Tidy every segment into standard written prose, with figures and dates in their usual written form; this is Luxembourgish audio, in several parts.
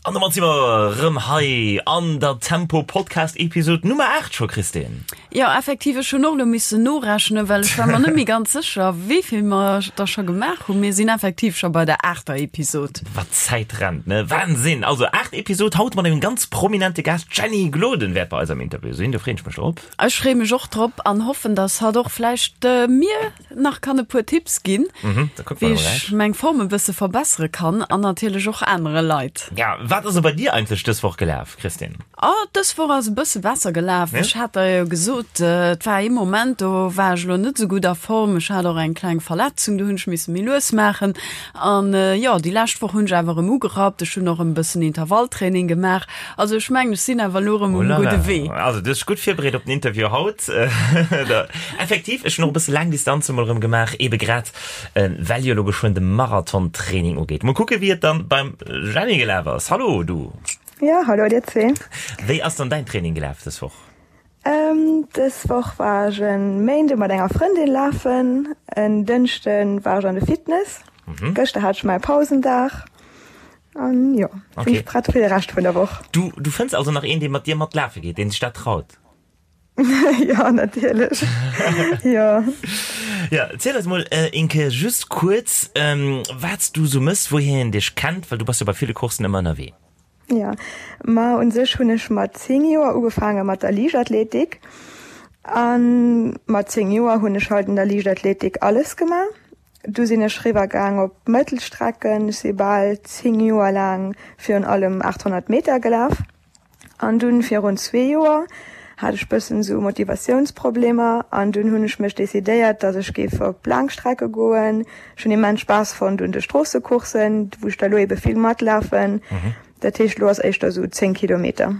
An domat si mer rëm hei an der Tempo Podcast Episode Nummer 8 scho, Christine. Jo, effektiv, ech hunn och elo missen norechnen, well ech war mer net méi ganz sécher, wéi vill mer der scho gemaach hunn. Mir sinn effektiv scho bei der aachter Episod. Wat d'Zäit rennt, ne? Wahnsinn! Also 8 Episode, haut mat engem ganz prominente Gast, d'Jenny Gloden wäert bei eis am Interview sinn, do freeën ech mech drop. Ech freeë mech och drop an hoffen, dass hatt och vläicht mir nach kann e puer Tipps ginn, wéi ech meng Form e bësse verbessere kann an natierlech och anere Leit. Ja, wat ass bei dir eigentlech dës Woch gelaf, Christine? Oh, dës Woch ass e bësse besser gelaf. Ech hat der jo gesot, et war ee Moment, do war ech elo net esou gutt a Form. Ech hat och eng kleng Verletzung, do hunn ech misse méi lues maachen. An jo, déi lescht Woch hunn ech awer erëm ugerappt. Ech hunn och erëm e bëssen Intervalltraining gemaach. Also ech mengen, ech sinn awer elo erëm um gudde Wee. Also du hues dech gutt virbereet op den Interview haut. Effektiv, ech hunn och e bësse laang Distanze mol erëm gemaach, ebe grad well jo elo geschwënn de Marathon-Training ugeet. Mol kucke wéi et dann beim Jenny gelaf ass. Hallo du. Jo, hallo dir zwee. Wéi ass dann däin Training gelaf dës Woch? Dës Woch war ech e Méinde mat enger Frëndin lafen, en Dënschde war ech an de Fitness, gëschter hat ech mäi Pausendag. An jo, okay. sinn prett fir de Rescht vun der Woch. Du, du fënns also nach een, dee mat dir mat lafe geet, deen sech dat traut? Ja, natierlech. Jo. Ja, ziel eis mol äh, Inke just kuerz, ähm, wat s du sou mëss, wouhier een dech kennt, well du bass jo bei ville Coursen ëmmer ënnerwee. Ja, ma un sech hunn ech mat 10 Joer ugefaange mat der Liichtathletik. An mat 10 Joer hunn ech halt an der Liichtathletik alles gemaach. Du sinn ech riwwer gaang op Mëttelstrecken. Ech si bal 10 Joer laang virun allem 800 Meter gelaf. An dunn virun zwee Joer hat ech bëssen esou Motivatiounsproblemer an dunn hunn ech mech decidéiert, dass ech géif op Laangstrecke goen. Ech hunn immens Spaass fonnt un de Stroossecourssen, wou ech da lo ebe vill matlafen. Dat heescht, lo ass éischter esou 10 Kilometer.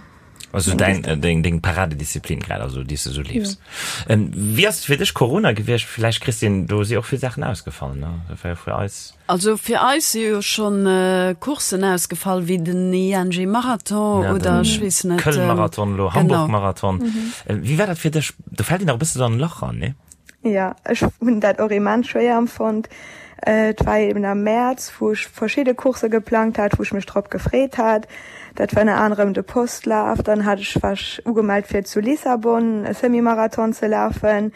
Also dein, äh, deng, deng Paradedisziplin grad, also déi s de sou leefs. Ja. Ähm, wéi ass et fir dech Corona gewiescht? Vläicht, Christine, do si och vill Saachen ausgefall, ne? Dat war jo fir eis. Also fir eis si jo schonn äh, Courssen ausgefall, wéi den ING Marathon ja, oder ech weess net. Köln-Marathon lo, Hamburg-Marathon. Mhm. Äh, wéi war dat fir dech? Do fält een nach e bësse sou an en Lach ran, ne? Jo, ech hunn dat och immens schwéier empfonnt. Et war eben am Mäerz, wou ech verschidde Coursse geplangt hat, wou ech mech drop gefreet hat. Dat war ënner anerem de Postlaf. Dann hat ech, war ech ugemellt fir zu Lissabon e Semi-Marathon ze lafen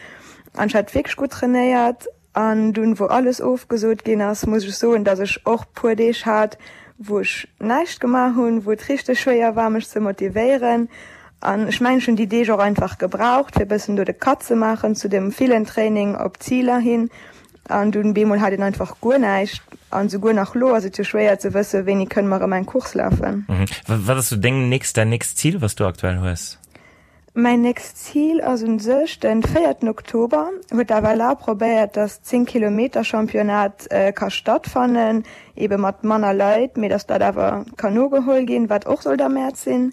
an ech hat wierklech gutt trainéiert. An dunn, wou alles ofgesot ginn ass, muss ech soen, datt ech och puer Deeg hat, wou ech näischt gemaach hunn, wou et richteg schwéier war mech ze motivéieren. An ech mengen ech hunn déi Deeg och einfach gebraucht fir bëssen do de Cut ze maachen zu dem villen Training op Ziler hin. An dunn bemol hat een einfach guer näischt. An souguer nach lo ass et jo schwéier ze wëssen, wéini kënne mer erëm eng Course lafen. Wat ass sou deng nächst, däin nächst Zil wat s du aktuell hues? Mäin nächst Zil ass un sech den véierten Oktober. Huet d'FLA probéiert, dass 10 Kilometer Championnat ka stattfannen, ebe mat manner Leit, mee dass dat awer kann nogeholl ginn, wat och sollt am Mäerz sinn.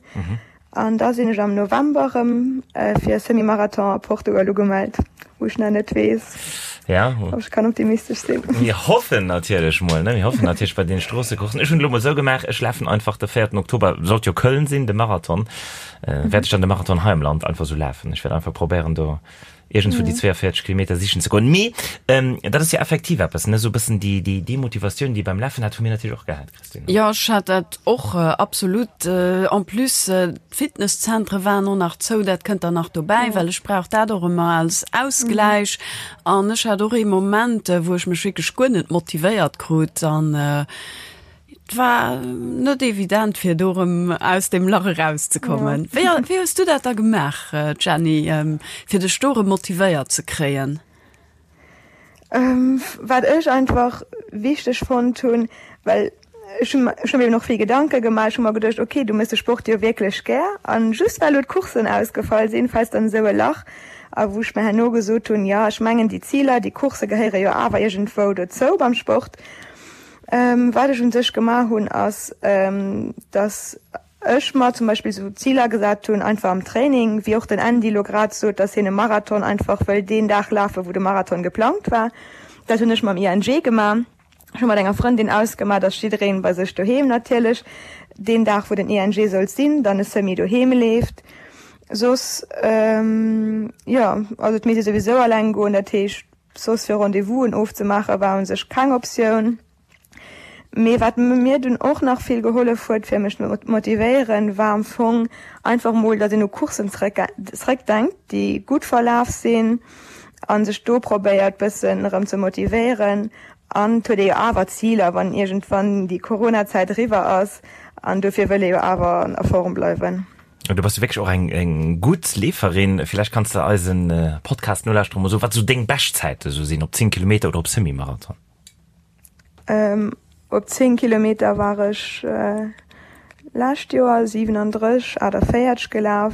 An da sinn ech am November erëm fir e Semi-Marathon a Portugal ugemellt, wou ech nach net weess, ob ech kann optimistesch sinn. Mir hoffen natierlech mol, ne? Mir hoffen natierlech bei deene Stroossecourssen. Ech hunn elo mol esou gemaach, ech lafen einfach de véierten Oktober, sollt jo Köln sinn, de Marathon. Wäert ech dann de Marathon hei am Land einfach sou lafen. Ech wäert einfach probéieren do iergendswou déi 42 Kilometer sichen ze goen. Mee dat ass jo effektiv eppes, ne, sou e bëssen déi, déi Demotivatioun, déi ee beim Lafen hat, hu mir natierlech och gehat, Christine. Jo, ech hat dat och absolut. En plus d'Fitnesszentre waren och nach zou, dat kënnt dann nach dobäi, well ech brauch dat och ëmmer als Ausgläich. An ech hat och ee Moment, wou ech mech wierklech guer net motivéiert krut an Et war net evident fir do erëm aus deem Lach erauszekommen. Wéi wéi hues du dat da gemaach, Jenny, fir dech do erëm motivéiert ze kréien? Wat ech einfach wichteg fonnt hunn, well ech hunn ech hunn mir eben och vill Gedanke gemaach, ech hu mer geduecht, okay, du méchs de Sport jo wierklech gär an just well elo d'Courssen ausgefall sinn, fäls dann esou e Lach. A wou ech mir herno gesot hunn, jo, ech mengen déi Ziler, déi Coursse gehéiere jo awer iergendwou dozou beim Sport. Wat ech un sech gemaach hunn, ass, dass ech mer zum Beispill esou Ziler gesat hunn, einfach am Training, wéi och den Andy elo grad sot, dass hien e Marathon einfach wëll deen Dag lafen, wou de Marathon geplangt war. Dat hunn ech mam ING gemaach. Ech hu mat enger Frëndin ausgemaach, dass jiddereen bei sech doheem natierlech deen Dag, wou den ING sollt sinn, dann e Semi doheem leeft. Soss, jo, also et misst ee souwisou alleng goen, dat heescht, Soss fir Rendez-vousen ofzemaache war un sech keng Optioun. Mee wat mir dunn och nach vill gehollef huet fir mech motivéieren, war am Fong einfach mol, datt een u Courssen zréckdenkt, déi gutt verlaf sinn a sech do probéiert bëssen erëm ze motivéieren. An et huet ee jo awer Ziler, wann iergendwann déi Corona-Zäit eriwwer ass an dofir wëll ee jo awer a Form bleiwen. Du bass jo wierklech och eng eng gutt Leeferin. Villäicht kanns de eisen Podcast-Nolauschterer mol soen, wat esou deng Beschtzäite sou sinn, op 10 Kilometer oder op Semi-Marathon? Op 10 Kilometer war ech lescht Joer 37, 48 gelaf.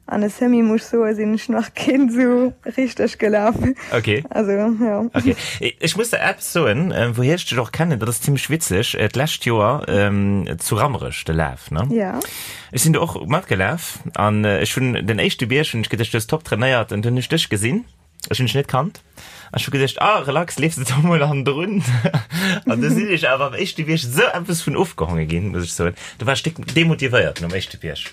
An e Semi muss ech soe sinn ech nach keen esou richteg gelaf. Okay. Also jo. Okay. Ech muss der eppes soen, wouhier ech dech och kennen, dat ass zimmlech witzeg, d'lescht Joer zu Rammerech de Laf, ne? Ja. Ech sinn do och matgelaf an ech hunn den éischte Bierg hunn ech geduecht, du hues top trainéiert an dunn hunn ech dech gesinn. Ech hunn dech net kannt. An ech hu geduecht, ah, relax, leefs de do mol hannendrun. An du sinn ech awer am éischte Bierg esou eppes vun ofgehonge ginn, muss ech soen. Do war ech déck demotivéiert nom éischte Bierg.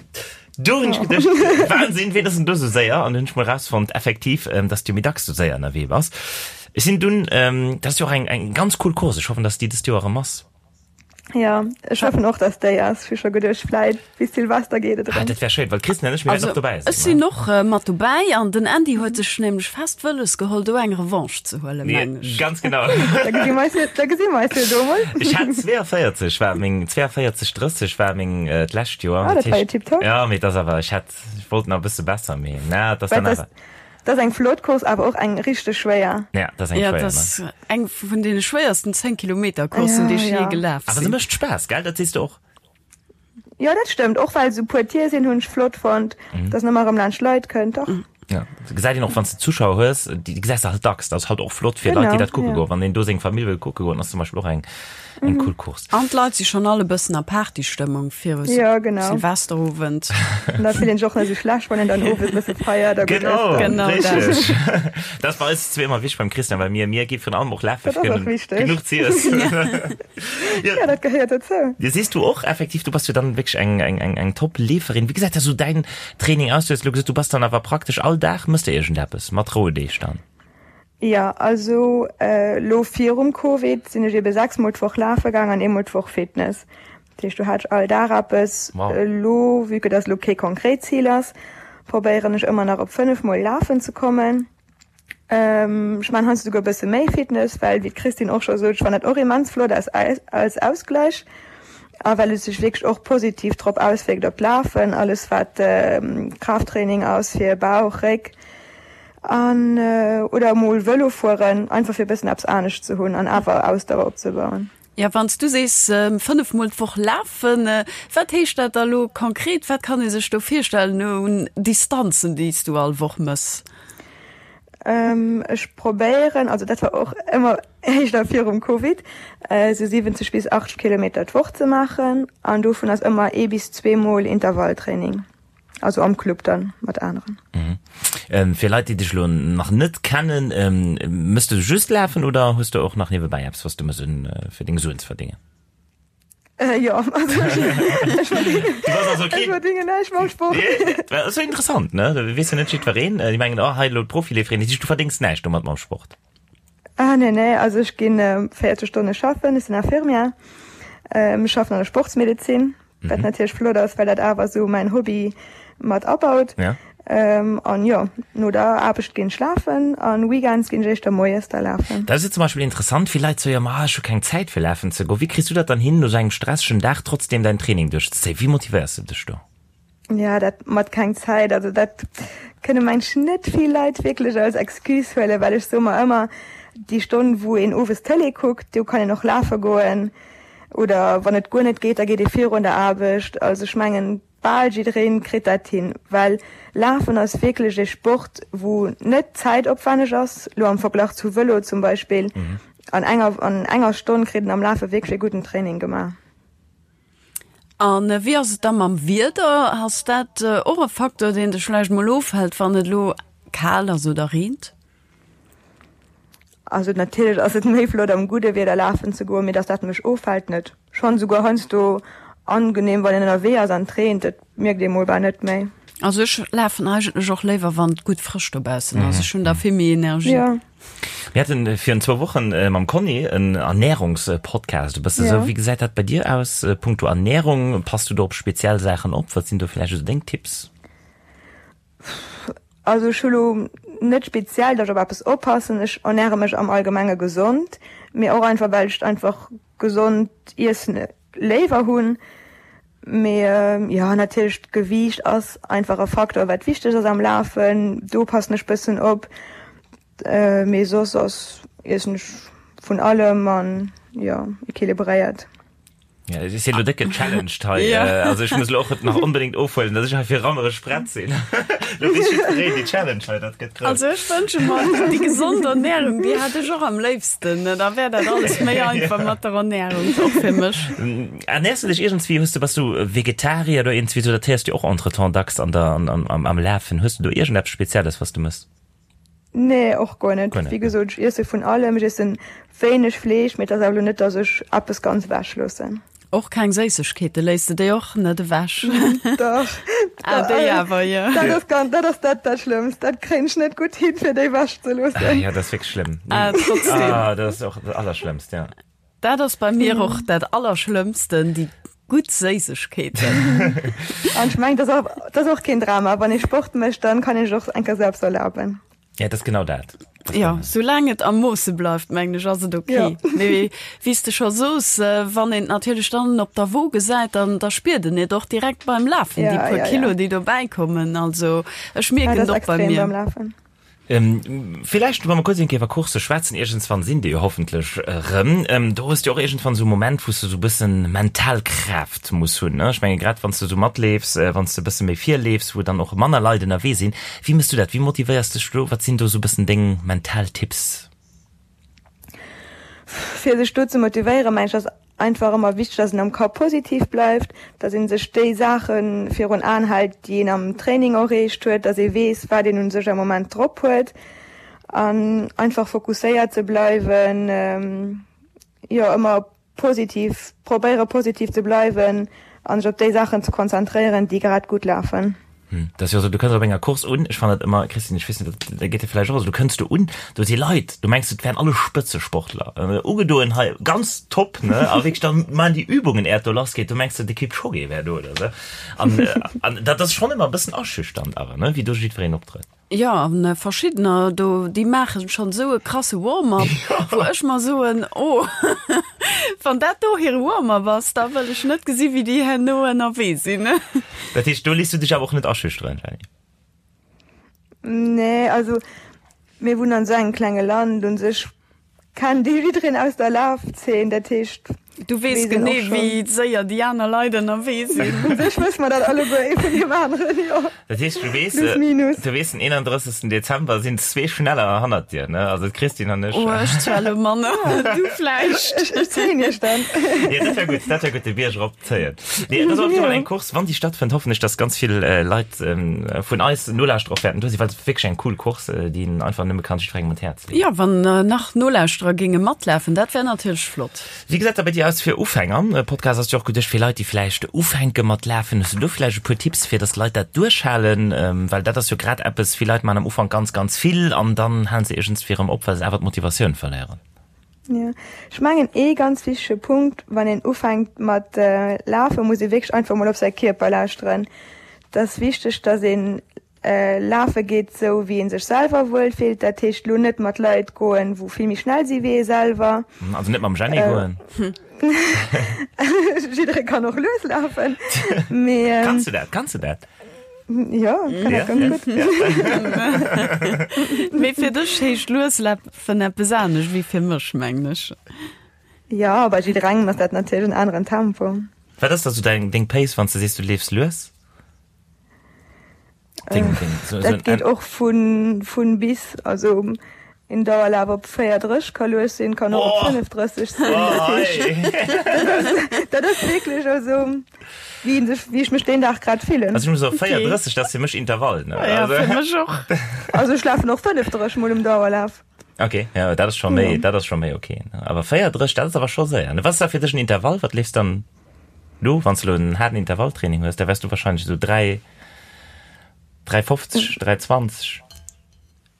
Du hunn ech geduecht, Wahnsinn, ween ass denn do esou séier? An du hunn ech mol rausfonnt, effektiv, dass du méi dacks esou séier ënnerwee bass. Ech sinn dunn, dat ass jo och eng, eng ganz cool Course, ech hoffen, dass déi dëst Joer erëm ass. Ja, ech hoffen och, dass déi ass. Ech hu scho geduecht, vläit bis Silvester geet et Ah, erëm. dat wär schéin, well d'Christine an ech, mir wäerten och dobäi sinn. Ech sinn och mat dobäi an den Andy huet sech nämlech fest wëlles geholl, do eng Revanche ze huelen, meng ech. Ganz genau. Da gesi mer eis jo, da gesi mer eis jo do mol. Ech hat 42 war meng, 42, 30 war meng d'lescht Joer. Ah, dat war jo tiptop. Ja, mee et ass awer, ech hätt, ech wollt nach e bësse besser, mee na, et ass dann awer. Dat ass eng flott Course, awer och eng richteg schwéier. Ja, dat ass eng Ja, schwéier, dat ne? ass eng vun deene schwéiersten 10 Kilometer Courssen, déi ech Ja, jee ja. gelaf Awer se sinn. mécht Spaass, gell? Dat sees de och. Jo, dat stëmmt. Och well esou puer Tier sinn, hunn ech flott fonnt, dass en ëmmer erëm laanscht Leit kënnt. Dach. Ja, dat gesäit een och, wann s de Zuschauer hues, déi gesäis de halt dacks. Dat ass halt och flott fir Leit, déi Genau, dat kucke ja. goen. Wann een do seng Famill wëll kucke goen, ass zum Beispill och eng Eng cool Course. An d'Leit si schonn all e bëssen a Partystëmmung viru Ja, genau. Silvesterowend. An da fillt een sech och net esou schlecht, wann een dann owes e bësse feiert a gutt Genau, ësst. Genau dat. richteg. Dat ass bei eis zwee ëmmer wichteg beim Christian, well mir, mir gi virun allem och lafe Dat fir ass och wichteg. genuch z'iessen. Ja, ja, dat gehéiert dozou. Ja, sees du och effektiv, du bass jo dann wierklech eng, eng, eng, eng Top-Leeferin. Wéi gesäit da sou däin Training aus? Du hues elo gesot, du bass dann awer praktesch all Dag, mëss de iergendeppes mat Rouedeeg dann? Jo, also lo virum Covid sinn ech ebe 6 mol d'Woch lafe gaang an eemol d'Woch Fitness. Dat heescht do hat ech all Dag eppes. Wow. Elo, vue que dass elo kee konkret Zil ass, probéieren ech ëmmer nach op 5 mol lafen ze kommen. Ech maan heiansdo souguer e bësse méi Fitness, well wéi d'Christine och scho sot, ech fannen dat och immens flott als als Ausgleich a well et sech wierklech och positiv drop auswierkt op d'Lafen, alles wat Kraafttraining ass fir Bauch, Réck. An oder emol Vëlo fueren, einfach fir e bëssen eppes anescht ze hunn an awer Ausdauer opzebauen. Jo, wann s du sees 5 mol d'Woch lafen, wat heescht dat da lo konkret? Wat kann ee sech do virstellen un Distanzen, déi s du all Woch mëss? Ech probéieren, also dat war och ëmmer éischter virum Covid, esou 70 bis 80 Kilometer d'Woch ze maachen an dovun ass ëmmer ee bis zweemol Intervalltraining. Also am Club dann mat aneren. Mhm. Ähm, fir Leit, déi dech lo nach net kennen, ähm, mëss du just lafen oder hues du och nach niewebäi eppes, was du mëss un, äh, fir deng Suen ze verdéngen? Äh, jo, also ech, ech verdingen, Du bass also ech keen. verdingen näischt mam Sport. Nee, dat ass jo interessant, ne? Da weess jo net jiddwereen. Äh, déi mengen, oh, hei elo d'Profileeferin, dat heescht, du verdéngs näischt domat mam Sport. Ah, nee, nee, also ech ginn äh, 40 Stonne schaffen, ech sinn Infirmière, ähm, ech schaffen an der Sportsmedezin. Wat natierlech flott ass, well dat awer esou mäin Hobby mat abaut. Ja. An jo, no der Aarbecht ginn ech lafen an Weekends ginn ech éischter moies da lafen. Dat ass jo zum Beispill interessant, vill Leit soe jo, ma ech hu keng Zäit fir lafen ze goen. Wéi kriss du dat dann hin, no sou engem stressegen Dag trotzdem däin Training duerchzezéien? Wéi motivéiers de dech do? Ja, dat mat keng Zäit, also dat kënne mengen ech net vill Leit wierklech als Excuse huelen, well ech soe mer ëmmer, déi Stonn wou een owes Tëlee kuckt, do kann een och lafe goen. Oder wann et guer net geet, da geet ee virun der Aarbecht. Also ech mengen, bal jidderee kritt dat hin, well Lafen ass wierklech ee Sport, wou net zäitopwänneg ass, lo am Verglach zu Vëlo zum Beispill. An enger an enger Stonn kritt een am Lafe wierklech ee gudden Training gemaach. A wéi ass et da mam Wieder? Ass dat och e Facteur, deen dech vläicht mol ofhält, wann et elo kal ass oder reent? Also natierlech ass et méi flott am gudde Wieder lafen ze goen, mee dass dat mech ofhält net. Schonn esouguer heiansdo angenehm wann een ënnerwee ass an et reent, dat mierkt ee mol bal net méi. Also ech lafen eigentlech och léiwer wann et gutt frësch dobaussen ass. Ech hunn da vill méi Energie. Ja. Mir haten virun zwou Wochen mam Conny en Ernährungspodcast e bësse sou. Wéi gesäit dat bei dir aus punkto Ernährung? Pass du do op speziell Saachen op? Wat sinn do vläicht esou deng Tipps? Also ech hu lo net speziell, datt ech op eppes oppassen. Ech ernäre mech am Allgemenge gesond, mee och einfach well ech einfach gesond Iessen léiwer hunn. Mee jo, natierlech d'Gewiicht ass einfach e Faktor wat wichteg ass am Lafen. Do passen ech bëssen op. Mee soss ass iessen ech vun allem an jo equilibréiert. Ja, ech sinn elo déck gechallenged hei. Ja. Also ech muss elo och nach onbedéngt ofhuelen, dass ech hei fir rammereg prett sinn. Lo weess jiddwereen déi Challenge hei, dat gëtt grouss. Also ech wënsche mer déi gesond Ernährung, déi hätt ech och am léifsten. Da wär dat alles méi einfach mat der Ernährung, och fir mech. Ernährs du dech iergendswéi, hues du, bass du Vegetarier oder iergendswéi sou, dat héiers du och entretemps dacks an der, an, am, am Lafen. Hues du do iergendeppes Spezielles, was du mëss? Nee, och guer net. Wéi gesot, ech iesse vun allem. Ech iessen wéineg Fleesch, mee et ass awer elo net, datt ech eppes ganz ewech loossen. Och keng Séissegkeete, léiss de déi och net ewech? Dach. Ah, déi awer, jo. Dat ass ganz, dat ass dat dat Schlëmmst. Dat kréien ech net gutt hin, fir déi ewech ze loossen. Ah jo, dat ass wierklech schlëmm. Ah, trotzdem. Ah, dat ass och dat Allerschlëmmst, ja. Dat ass bei mir och dat Allerschlëmmsten, déi gutt Séissegkeeten. An ech mengen, dat ass och, dat ass och keen Drama. Wann ee Sport mécht, dann kann ee sech och eng Kéier selbst erlaben. Ja, dat ass genau dat. Jo, soulaang et am Moosse bleift, mengen ech, ass et ok. Jo. Mee wéi s de scho soos, wann een et natierlech dann op der Wo gesäit, dann da spiert en et och direkt beim Lafen, déi Ja, puer ja, Kilo, ja. déi dobäi kommen. Also ech Ja, mierken dat et ass och bei extrem mir. beim Lafen. Villäicht, wa mer kuerz eng Kéier iwwer Coursse schwätzen, iergendswann sinn déi jo hoffentlech erëm, do hues du och iergendwann esou e Moment, wou s de esou e bëssen mental Kraaft muss hunn, ne? Ech menge grad wann s de esou matleefs, wann s de e bësse méi virleefs, wou dann och manner Leit ënnerwee sinn, wéi méchs du dat? Wéi motivéiers dech do? Wat sinn do esou e bëssen deng mental Tipps? Fir sech do ze motivéieren, mengen ech, ass einfach ëmmer wichteg, dass een am Kapp positiv bleift, dass ee sech déi Saache virun Aen hält, déi een am Training erreecht huet, dass ee weess, wat een u sech am Moment drop huet an einfach fokusséiert ze bleiwen, jo ëmmer positiv, probéiere positiv ze bleiwen a sech op déi Saachen ze konzentréieren, déi grad gutt lafen. Dat ass jo esou, du kënns op enger Course un, ech fannen dat ëmmer, Christine, ech weess net, dat geet dir vläicht och esou, du kënns do un, do si Leit, du mengs, et wären alle Spëtzesportler, ugedoen hei, ganz top, ne, a wierklech da maachen déi Übungen, äert do lassgeet, du mengs, de Kipchoge wär do oder esou. An, an dat ass schonn ëmmer e bëssen aschüchternd awer, ne, wéi do jiddwereen optrëtt. Jo, an verschiddener do, déi maachen schonn esou e krasse Warm-up, wou ech mer soen, oh, wann dat do hire Warm-up ass, da wëll ech net gesi wéi déi herno ënnerwee sinn. Dat heescht, do léiss du dech awer och net aschüchteren, Jenny? Nee, also mir wunnen an esou engem klenge Land, u sech Kennt ee jiddereen aus der Lafzeen, dat heescht. Du weess genee wéi séier déi aner Leit ënnerwee sinn. U sech wësse mer dat alleguer ee vun deem aneren, jo. Dat heescht, du weess, Plus minus. du weess den 31. Dezember sinn zwee schneller hannert dir, ne? Also d'Christine an ech. Oh, ech zwar elo manner, du vläicht. Ech, ech zéien iech dann. Jo, dat wär gutt, dat wär gutt, de Bierg erop zéien. Nee, dat ass op jeden Fall eng Course, wann déi stattfënnt, hoffen ech, dass ganz vill Leit vun eis Nolauschterer och wäerten do sinn, well et ass wierklech eng cool Course, déi een einfach nëmme kann jiddwerengem un d'Häerz Jo, wann nach Nolauschterer géinge matlafen, dat wär natierlech flott. Wéi gesäit dat bei dir aus fir Ufänger? Podcast ass jo och geduecht fir Leit, déi vläicht ufänke mat lafen. Hues du do vläicht e puer Tipps, fir dass Leit dat duerchhalen? Well dat ass jo grad eppes, vill Leit maachen am Ufank ganz, ganz vill an dann halen se iergendswéi erëm op, well se awer d'Motivatioun verléieren. Jo, ech mengen ee ganz wichtege Punkt, wann een ufänkt mat lafen, muss ee wierklech einfach mol op säi Kierper lauschteren. Et ass wichteg, dass een Lafe geet sou wéi een sech selwer wuel fillt, dat heescht lo net mat Leit goen wou vill méi schnell si wéi ee selwer. Also net mam Jenny goen. Jidderee kann och lues lafen, mee. Kanns du dat? Kanns du dat? Jo, ech kann dat ganz gutt. Mee fir dech heescht lues lafen eppes anescht wéi fir mech, mengen ech. Jo, bei jidderengem ass dat natierlech en aneren Tempo. Wat ass da sou deng Pace wann s de sees du leefs lues? Ding, ding. So, dat so geet och vun, vun bis, also en Dauerlaf op 34 ka lues sinn, kann och op 35 sinn. Oh, hey. Dat ass wierklech also wéi een sech, wéi ech mech deen Dag grad fillen. Also ech muss soen, 34, dat ass fir mech Intervall, ne? Ja, fir mech och. Also ech lafen och 35 mol um Dauerlaf. Okay, ja, dat ass scho méi, dat ass scho méi okay. Awer 34, dat ass awer scho séier. Wat ass da fir dech en Intervall? Wat leefs dann? Lo, wann s de lo en haarden Intervalltraining hues, da wäers du wahrscheinlech esou 3. 3,50, 3,20?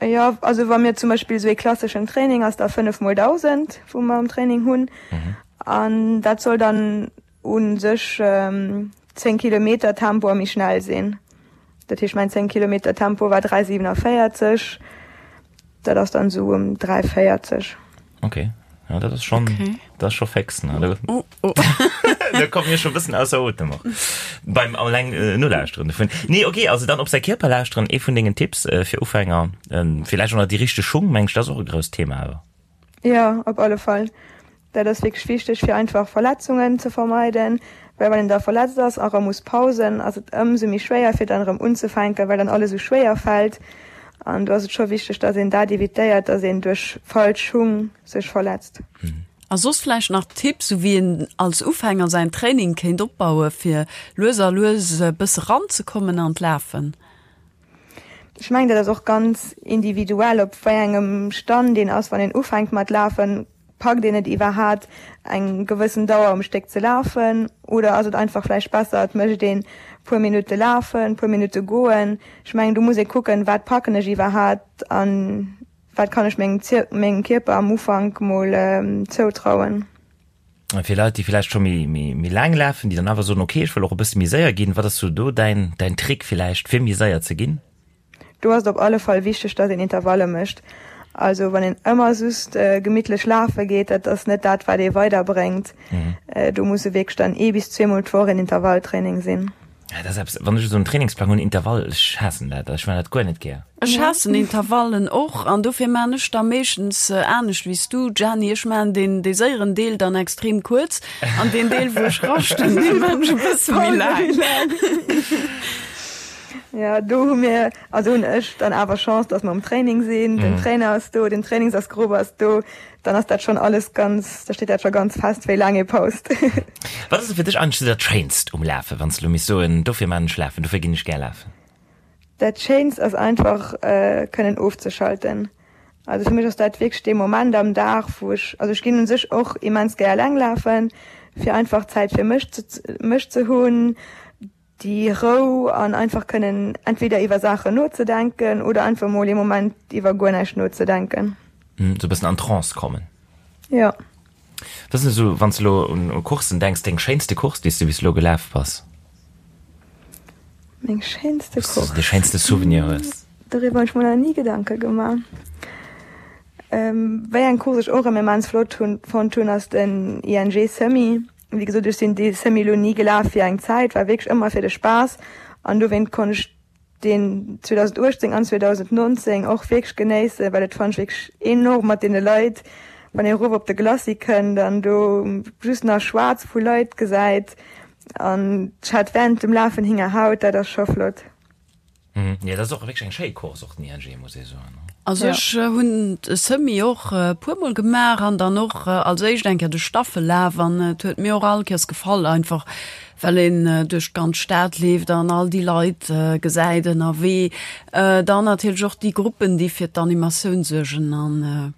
Jo, also wa mir zum Beispill esou ee klasseschen Training ass da 5 mol 1.000, wou mer am Training hunn. An dat soll dann u sech 10 Kilometer Tempo a méi schnell sinn. Dat heescht mäin 10 Kilometer Tempo war 3,47, dat ass dann esou ëm 3,40. Okay, ja, dat ass schon, okay. dat ass scho fix, ne? Da, oh, oh. da kommt mir schon bëssen ausser Otem och. Beim alleng äh, nolauschteren dovun. Nee, okay, also dann op säi Kierper lauschteren, ee vun dengen Tipps äh, fir Ufänger. Ähm, vielleicht och nach déi richteg Schung, meng ech, dat ass och e grousst Thema awer. Ja, op alle Fall. Dat ass wierklech wichteg, fir einfach Verletzungen ze vermeiden, well wann een da verletzt ass a rëm muss pausen, ass et ëmsou méi schwéier fir dann erëm unzefänken, well dann alles esou schwéier fält. An do ass et scho wichteg, dass een dat evitéiert, dass een duerch falsch Schung sech verletzt. A soss vläicht nach Tipps, sou wéi een als Ufänger säin Training kéint opbaue fir lues a lues e bësse ranzekommen an d'Lafen? Ech mengen, dat ass och ganz individuell, op wéi engem Stand een ass, wann een ufänkt mat lafen. Packt een et iwwerhaat eng gewëssen Dauer um Stéck ze lafen oder ass et einfach vläicht besser et mécht een puer Minutte lafen, puer Minutte goen? Ech mengen do muss ee kucken, wat packen ech iwwerhaat an wat kann ech mengem mengem Kierper am Ufank mol zoutrauen. A fir Leit déi vläicht scho méi méi méi laang lafen, déi dann awer soen, ok ech wëll och e bësse méi séier ginn, wat ass sou do däin däin Trick vläicht fir méi séier ze ginn? Do ass et op alle Fall wichteg, dass een Intervalle mécht. Also wann een ëmmer just gemittlech lafe geet, dat ass net dat, wat ee weiderbréngt. Do musse wierklech dann ee bis zweemol d'Woch een Intervalltraining sinn. Ja, dat ass eppes, wann ech esou en Trainingsplang hunn, Intervall, ech haassen dat, ech man dat guer net gär. Ech haassen Intervallen och an dofir man ech da meeschtens anescht wéi s du, Gianni. Ech man deen, dee séieren Deel dann extrem kuerz an deen Deel, wou ech raschten, dee man ech e bësse méi laang. Ja, do hu mir, also hunn ech dann awer Chance, dass mer um Training sinn, den Trainer ass do, den Trainingsassgrupp ass do, dann ass dat schonn alles ganz, da steet dat scho ganz fest, wéi laang ee paust. Wat ass fir dech eigentlech dat Schéinst um Lafen, wann s de elo misst soen, dofir maan ech Lafen, dofir ginn ech gär lafen? Dat Schéinst ass einfach kënnen ofzeschalten. Also fir mech ass dat wierklech dee Moment am Dag, wou ech, also ech ginn un sech och immens gär eleng lafen, fir einfach Zäit fir mech ze mech ze hunn, déi Rou an einfach kënnen entweder iwwer Saachen nozedenken oder einfach mol ee Moment iwwer guer näischt nozedenken. Sou e bëssen an Trance kommen. Jo. Wat ass denn esou, wann s de elo un Courssen denks, deng schéinste Course, déi s de bis elo gelaf bass? Meng schéinste Course? Wou s de de schéinste Souvenir hues? Doriwwer hunn ech mer nach ni Gedanke gemaach. Wéi eng Course ech och ëmmer immens flott hunn, fonnt hunn, ass den ING Semi. Wéi gesot, ech sinn dee Semi lo ni gelaf fir eng Zäit, war wierklech ëmmer fir de Spaass an dowéint konnt ech deen 2018 an 2019 och wierklech genéissen, well et fannt ech wierklech enorm mat deene Leit, wann ee erof op de Glacis kënnt an do just nach schwaarz vu Leit gesäit an ech hat während dem Lafen Hingerhaut, dat ass scho flott. Mhm. Ja, dat ass och wierklech eng schéi Course, och den ING, muss ee soen. Also ech hunn de Semi och e puermol gemaach an dann och als éischt eng Kéier de Staffellaf an et huet mir och all Kéiers gefall, einfach well een duerch d'ganz Stad leeft an all déi Leit gesäit ënnerwee. Dann natierlech och déi Gruppen, déi fir d'Animatioun suergen an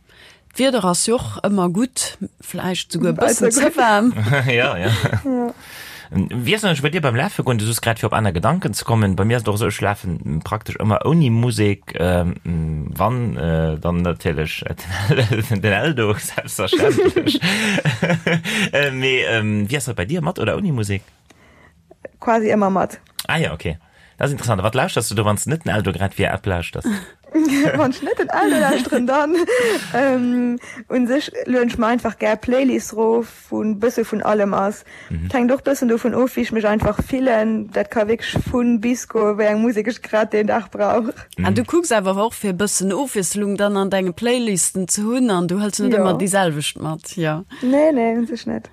D'Wieder ass jo och ëmmer gutt, vläicht souguer e bëssen ze waarm. Ja, ja. Wéi ass et eigentlech bei dir beim Lafe goen? Du soos grad, fir op aner Gedanken ze kommen. Bei mir ass et och esou, ech lafen praktesch ëmmer ouni Musek. Wann, dann natierlech den Eldo, selbstverständlech. Mee wéi ass dat bei dir, mat oder ouni Musek? Quasi ëmmer mat. Ah ja, okay. Dat ass interessant. A wat lauschters du do, wann s de net den Eldo grad via App lauschters? Wann ech net den Eldo lauschteren, dann ähm, un sech lueden ech mer einfach gär Playlists rof, wou en bësse vun allem ass. Mhm. Et hänkt och bëssen dovun of, wéi ech mech einfach fillen. Dat ka wierklech vun bis goen, wéi eng Musek ech grad deen Dag brauch. Mhm. An du kucks awer och fir e bëssen Ofwiesslung dann an denge Playlisten ze hunn an du hëls net ëmmer déi selwecht mat, jo? Nee, nee, un sech net.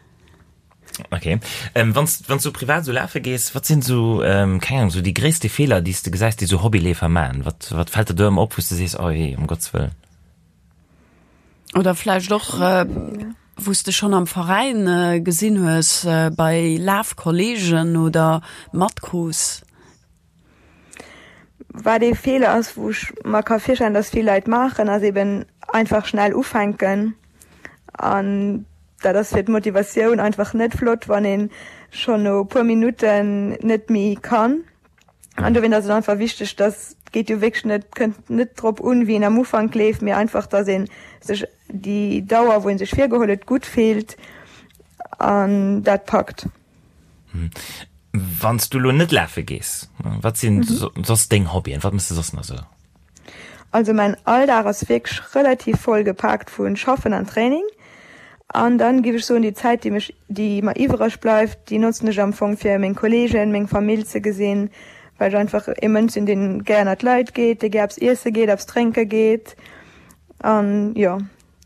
Okay. Ähm, wanns, wanns du privat so lafe gees, wat sinn so, ähm, keng Ahnung, so déi gréisste Feeler, déi s de gesäis, déi so Hobbyleefer man? Wat, wat fält der do ëmmer op, wou s de sees, oh jee, um Gottes Wëllen? Oder vläicht och, äh, wou s de schonn am Veräin äh, gesinn hues, äh, bei Lafkollegen oder matkrus? Wat ee Feeler ass, wou ech mer ka virstellen, dass vill Leit maachen, ass eben einfach schnell ufänken. An dat ass fir d'Motivatioun einfach net flott, wann ee schonn no e puer Minutten net méi kann. An dowéint ass et einfach wichteg, dass, et geet jo wierklech net, kënnt net drop un, wéi een am Ufank leeft, mee einfach, dass ee sech déi Dauer, wou ee sech virgeholl huet, gutt fillt an dat packt. Wann s du elo net lafe gees, wat sinn soss deng Hobbyen? Wat méchs de soss nach esou? Also mäin Alldag ass wierklech relativ voll gepaakt vu Schaffen an Training. An dann giff ech soen, déi Zäit déi mech, déi mer iwwereg bleift, déi notzen ech am Fong fir meng Kollegen, meng Famill ze gesinn, well ech einfach ee Mënsch sinn, deen gär ënnert d'Leit geet, dee gär eppes iesse geet, eppes drénke geet. An jo,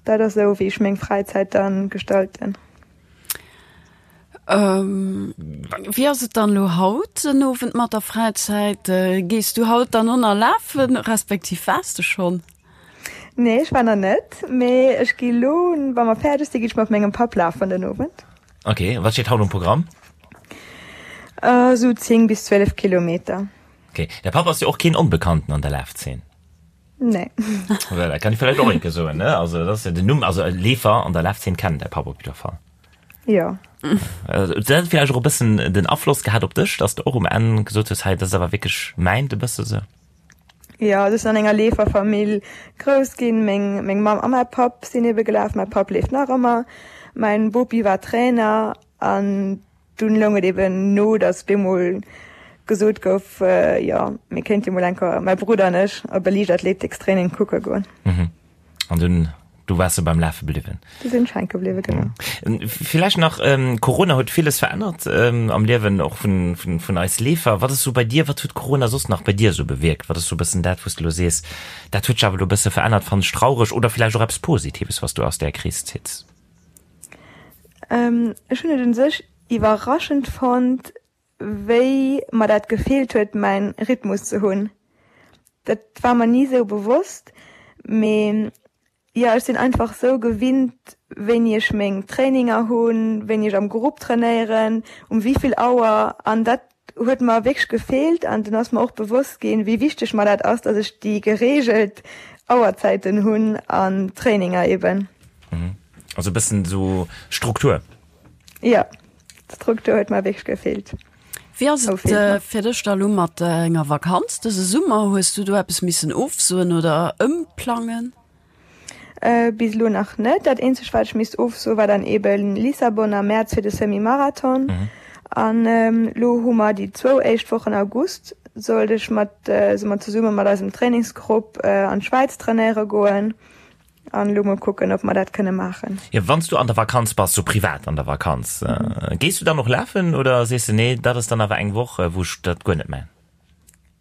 dat ass esou wéi ech meng Fräizäit dann gestalten. Wéi ass et dann elo haut den Owend mat der Fräizäit? Gees du haut dann och nach lafen, respektiv waars de schonn? Nee, ech war nach net, mee ech gi lo, wa mer fäerdeg sinn, gi ech mat mengem Papp lafen den Owend. Ok, wat steet haut um Programm? Esou 10 bis 12 Kilometer. Ok, däi Papp ass jo och keen Onbekannten an der Lafzeen. Nee. Voilà, kann ich vielleicht och enke soen, ne? Also, das ist ja den Numm, also Leefer an der Lafzeen kennen däi Papp op jidder Fall. Jo. Also, dat huet vielleicht och e bëssen den Afloss gehat op dech, dass du och um Enn gesot hues, hei, dat ass awer wierklech mäint e bësse sou. Jo, also ech sinn an enger Leeferfamill grouss ginn. Meng, meng Mamm a mäi Papp sinn ebe gelaf. Mäi Papp leeft nach ëmmer. Mäin Bopi war Trainer an Dunn loung et eben no, datt bemol gesot gouf, jo, mir kéinte jo mol eng Kéier, mäi Brudder an ech, op e Liichtathletikstraining kucke goen. Mhm. An dunn, du waars du beim Lafe bliwwen? Du sinn ech hänke bliwwen, genau. Villäicht nach, Corona huet villes verännert am Liewen och vun, vun, vun eis Leefer. Wat ass sou bei dir, wat huet Corona soss nach bei dir sou bewierkt? Wat ass sou e bëssen dat, wou s de elo sees, dat huet sech awer elo e bësse verännert, fannen ech traureg, oder villäicht och eppes Positives, wat s du aus där Kris zitts? Ech hunn et un sech iwwerraschend fonnt, wéi mer dat gefeelt huet, mäin Rhythmus ze hunn. Dat war mer ni sou bewosst, mee jo, ech sinn einfach sou gewinnt, wéini ech meng Traininger hunn, wéini ech am Grupp trainéieren, um wéivill Auer an dat huet mer wierklech gefeelt an dunn ass mer och bewosst ginn, wéi wichteg mer dat ass, dass ech déi gereegelt Auerzäiten hunn an Traininger eben. Mhm. Also e bëssen esou Struktur. Jo, d'Struktur huet mer wierklech gefeelt. Wéi ass et äh, fir dech da lo mat enger Vakanz dëse Summer? Hues du do eppes missen ofsoen oder ëmplangen? Bis elo nach net. Dat eenzegt wat ech misst ofsoen war dann eben Lissabon am Mäerz fir de Semi-Marathon. An elo hu mer déi zwou éischt Wochen August sollt ech mat, si mer zesumme mat eisem Trainingsgrupp an d'Schwäiz trainéiere goen. An elo mol kucken ob mer dat kënne maachen. Jo, wann s du an der Vakanz bass, sou privat an der Vakanz, gees du dann och lafen oder sees de nee, dat ass dann awer eng Woch wou ech dat guer net man?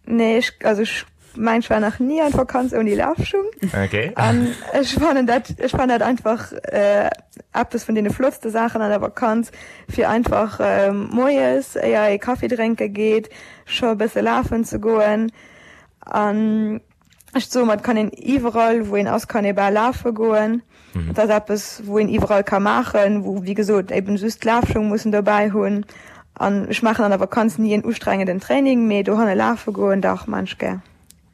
Nee, ech, also ech mein, ech war nach ni an Vakanz ouni Lafschung. Okay. An ech fannen dat, ech fannen dat einfach äh, eppes vun deene flottste Saachen an der Vakanz, fir einfach äh, moies, éier ee Kaffi drénke geet, scho e bësse lafen ze goen. An Ech soe mer, et kann een iwwerall, wou een ass, kann ee bal lafe goen. Et ass eppes, wou een iwwerall ka maachen, wou, wéi gesot, eben just d'Lafschung muss en dobäi hunn. An ech maachen an der Vakanz ni en ustrengenden Training, mee dohanne lafe goen, dach, maan ech gär.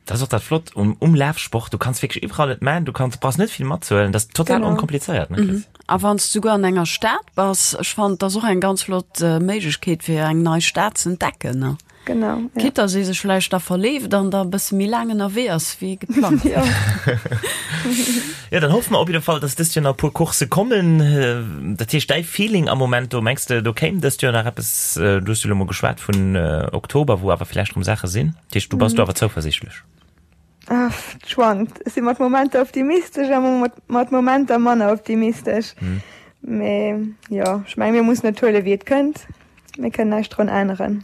Dat ass och dat Flott um, um Lafsport, du kanns wierklech iwwerall et maan, du kanns, brauchs net vill matzehuelen, dat ass total Genau. onkomplizéiert, ne Chris? A wann s du souguer an enger Stad bass, ech fannen, et ass och eng ganz flott Méiglechkeet, fir eng nei Stad ze entdecken, ne? Genau, ja. Quitte dass ee sech vläicht da verleeft an da e bësse méi laang ënnerwee ass wéi geplangt. Ja. Ja, dann hoffe mer op jidde Fall, dass dëst Joer nach e puer Coursse kommen. Dat heescht, däi Feeling am Moment do, mengs de, do kéim dëst Joer nach eppes? Du hues jo elo mol geschwat vun Oktober, wou awer vläicht erëm Saache sinn. Dat heescht, du bass do awer zouversiichtlech? Ah, et schwankt. Ech si mat Momenter optimistesch a mat Momenter manner optimistesch. Mee jo, ech menge mir mussen et huele wéi et kënnt. Mir kënnen näischt drun änneren.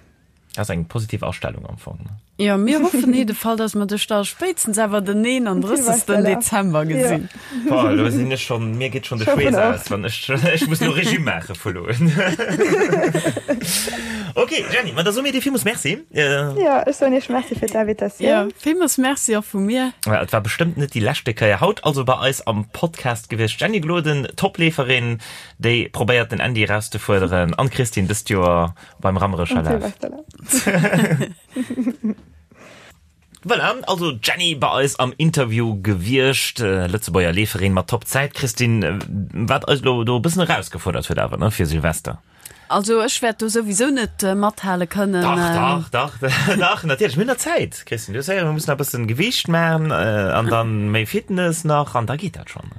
Dat ass eng positiv Astellung am Fong, ne? Jo, mir hoffen jidde Fall, dass mer dech da spéitstens awer den 31. Dezember gesinn. Boah, elo sinn ech schonn, mir geet schonn de Schweess aus, wann ech, ech muss elo Regime maache vu elo un. Ok, Jenny, ma da soe mir dir villmools Merci. Jo, ech soen iech Merci fir d'Invitatioun. Jo, villmools Merci och vu mir. Et war bestëmmt net déi leschte Kéier. Haut also bei eis am Podcast gewiescht d'Jenny Gloden, Topleeferin, Déi probéiert den Andy erauszefuerderen an d'Christine dëst Joer beim Rammerecher Laf. Voilà, also d'Jenny bei eis am Interview gewiescht, Lëtzebuerger Leeferin mat Top Zäit. Christine, wat eis elo do e bëssen erausgefuerdert huet awer, ne, fir Silvester. Also ech wäert do souwisou net mathale kënnen. Dach, dach, dach, dach, natierlech. Mir hunn nach Zäit, Christine. Du hues héieren, mir mussen nach e bëssen Gewiicht maachen an dann méi Fitness nach an da geet dat schonn.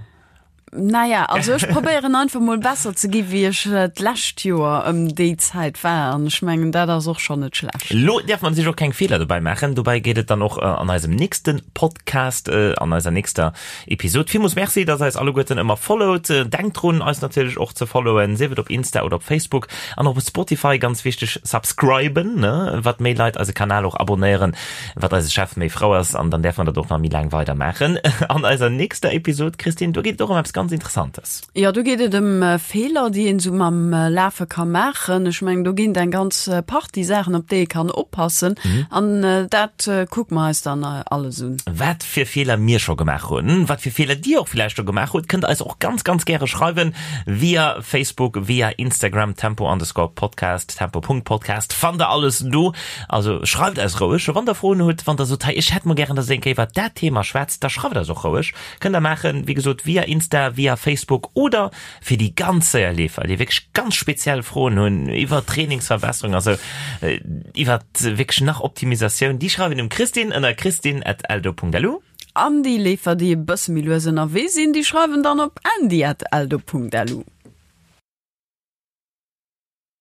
Naja, also ech probéieren einfach mol besser ze gi wéi ech d'lescht Joer ëm déi Zäit war an ech mengen dat ass och schonn net schlecht. Lo däerf man sech och keng Feeler dobäi maachen. Dobäi geet et dann och an eisem nächste Podcast, an eiser nächster Episod. Villmools Merci, dass eis alleguerten ëmmer followt. Denkt drun eis natierlech och ze followen, sief et op Insta oder op Facebook an och op Spotify, ganz wichteg, subscriben, ne, wat méi Leit eise Kanal och abonéieren, Wat eise Chef méi frou ass, an dann däerfe mer dat och nach méi laang weider maachen. An eiser nächster Episod, Christine, do geet et och ëm eppes ganz Interessantes. Jo, do geet et ëm Feeler, déi een esou mam Lafe ka maachen. Ech mengen, do ginn et eng ganz Partie Saachen, op déi ee kann oppassen. An dat kucke mer eis dann alles un. Wat fir Feeler mir scho gemaach hunn, wat fir Feeler Dir och villäicht scho gemaach hutt, kënnt eis och ganz, ganz gäre schreiwen via Facebook, via Instagram, tempo underscore podcast, tempo Punkt podcast, fannt der alles do. Also schreift eis roueg, wann der Froen hutt, wann der sot, hei ech hätt mol gären, dass der eng Kéier iwwert dat Thema schwätzt, da schreift eis och roueg. Kënnt der maachen, wéi gesot, via Insta, via Facebook oder fir déi ganz séier Leefer, déi wierklech ganz speziell Froen hunn iwwer Trainingsverbesserung, also iwwert wierklech nach Optimisatioun, déi schreiwen dem Christine ënner christine@eldo.lu. An déi Leefer, déi e bësse méi lues ënnerwee sinn, déi schreiwen dann op andy@eldo.lu.